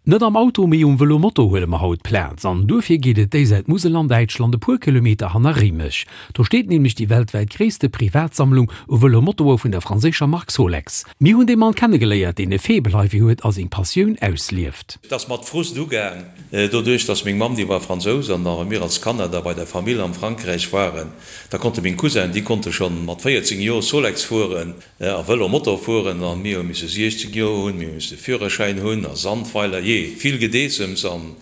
Net am Auto, mee um Vëlomoto huele mer haut Plaz. An duerfir geet et déi Säit Musel an Däitschland, e puer Kilometer hanner Réimech. Do steet nämlech déi weltwäit gréisste Privatsammlung u Vëlomotoe vun der franséischer Mark Solex. Mir hunn dee Mann kennegeléiert, deen e Faible heifir huet a seng Passioun auslieft. Et ass mat Frust ugaang, doduerch dass meng Mamm, déi war Fransous, an da wa mir als Kanner da bei der Famill am Frankräich waren, da konnte meng Cousin, déi konnte schonn mat 14 Joer Solex fueren, A Vëlo, Motor fueren an mir hu misse 16 Joer hunn, mir hu misse Führerschäin hunn a Sandweiler, jee, vill Gedeessems an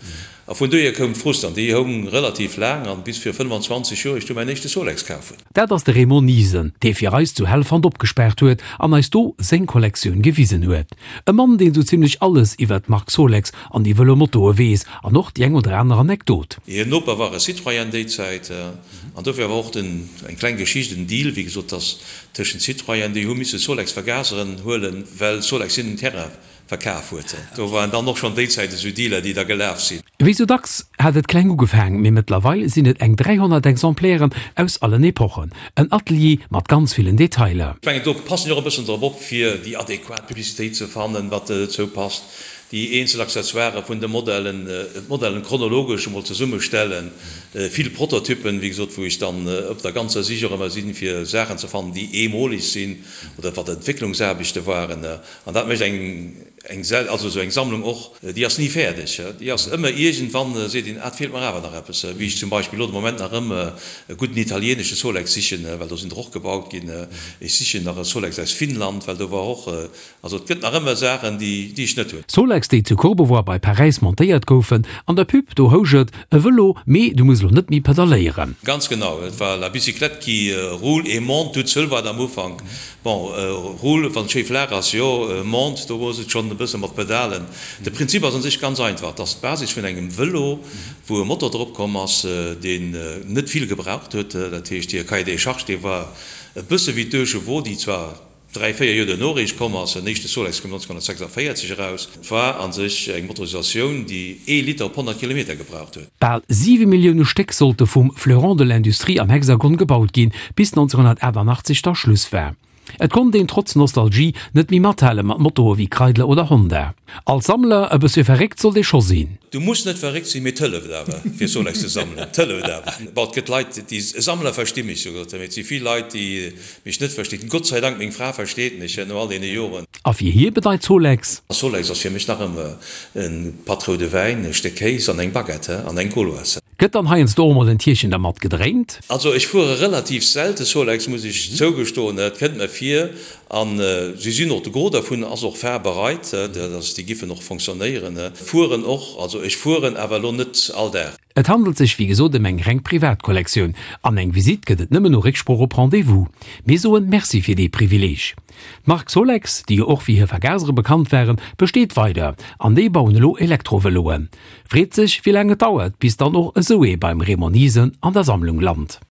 a vun dohier koum d'Frust an déi houng relativ laang an bis vir 25 Joer ech du mäin éischte Solex kaf hunn. Dat ass de Raymond Niesen, dee fir eis zu Helfant opgespaart huet an eis do seng Kollektioun gewisen huet. E Mann, deen sou zimlech alles iwwert d'Mark Solex an déi Vëlomotoe weess an och déi eng oder aner Anekdot. Hir Noper war e Citroën déi Zäit an dofir war och den, eng kleng Geschicht, en Deal, wéi gesot, dass Tëschent Citroën, déi hu misse Solex Vergaseren huelen, well Solex hinnen den Terrain verkaf huet. Do waren dann och schonn déi Zäit esou Dealer, déi da gelaf sinn. Wéi sou dacks hat et kleng ugefaang, mee mëttlerweil sinn et eng 300 Exemplairen aus allen Epochen. En Atelier mat ganz villen Detailer. Ech mengen, do passen ech och e bëssen drop op, fir déi adequat Publicitéit ze fannen, wat dozou passt, déi eenzel Accessoiren vun de Modellen, d'Modellen chronologesch emol zesummestellen, vill Prototypen, wéi gesot, wou ech dann op der ganzer Sich och ëmmer sinn, fir Saachen ze fannen, déi eemoleg sinn oder wat Entwécklungsaarbechte waren. An dat mécht eng, eng, also esou eng Sammlung och, déi ass ni fäerdeg, déi ass ëmmer iergendwann seet een, ah, et feelt mer awer nach eppes, wéi ech zum Beispill elo de Moment nach ëm e gudden italieenesche Solex sichen, well do sinn der och gebaut ginn. Ech sichen nach e Solex aus Finnland, well do war och Also et gëtt nach ëmmer Saachen, déi ech net hunn. Solex, déi zu Courbevoie bei Paräis montéiert goufen. An der Pub, do housch et, E Vëlo, mee du muss elo net méi pedaléieren. Ganz genau, et war la bicyclette qui roule et monte toute seule war et am Ufank. Bon, roule, wann et schéi flaach ass, jo, monte, do ass et schonn e bësse mat Pedalen. De Prinzip ass un sech ganz einfach, et ass d'Basis vun engem Vëlo, wou e Motor drop komm ass, deen net vill gebraucht huet. Dat heescht, hir Cahier des charges, dee war e bësse wéi d'Deuchevaux, déi zwar 3, 4 Joer duerno eréischt komm ass, den éischte Solex koum 1946 eraus, et war a sech eng Motorisatioun, déi ee Liter op 100 Kilometer gebraucht huet. Bal 7 Millioune Stéck sollte vum Fleuron de l'Industrie am Hexagon gebaut ginn, bis 1988 da Schluss war. Et konnt een trotz Nostalgie net méi mathale mat Motoe wéi Kreidler oder Honda. Als Sammler e bëssche verréckt sollt ee scho sinn. Du muss net verréckt sinn, mee 't hëlleft awer fir Solex ze sammelen. 't hëlleft awer. Bon, et gëtt Leit, déi Sammler versti mech souguer, mee et si vill Leit, déi mech net verstinn. Gott sei Dank, meng Fra versteet mech no all deene Joren. A fir hie bedeit Solex. Solex ass fir mech nach ëmmer e Patt roude Wäin, e Stéck Kéis an eng Baguette an eng Gauloise. Gëtt dann heiansdo och mol en Tierchen dermat gedréint? Also ech fuere relativ selte Solex, muss ech zougestoen. Et kënnt mer vir, an si sinn och, de Gros dervun ass och fahrbereit, dass déi giffen och fonctionnéieren. Fueren och, also ech fueren awer elo net all Dag. Et handelt sech wéi gesot ëm eng reng Privatkollektioun an eng Visitt gëtt et nëmmen no Récksprooch op Rendez-vous. Mir soen Merci fir dee Privileeg. D'Mark Solex, déi jo och fir hir Vergasere bekannt waren, besteet weider an déi bauen elo Elektrovëloen. Freet sech wéi laang et dauert bis dann och esou ee beim Raymond Niesen an der Sammlung lant.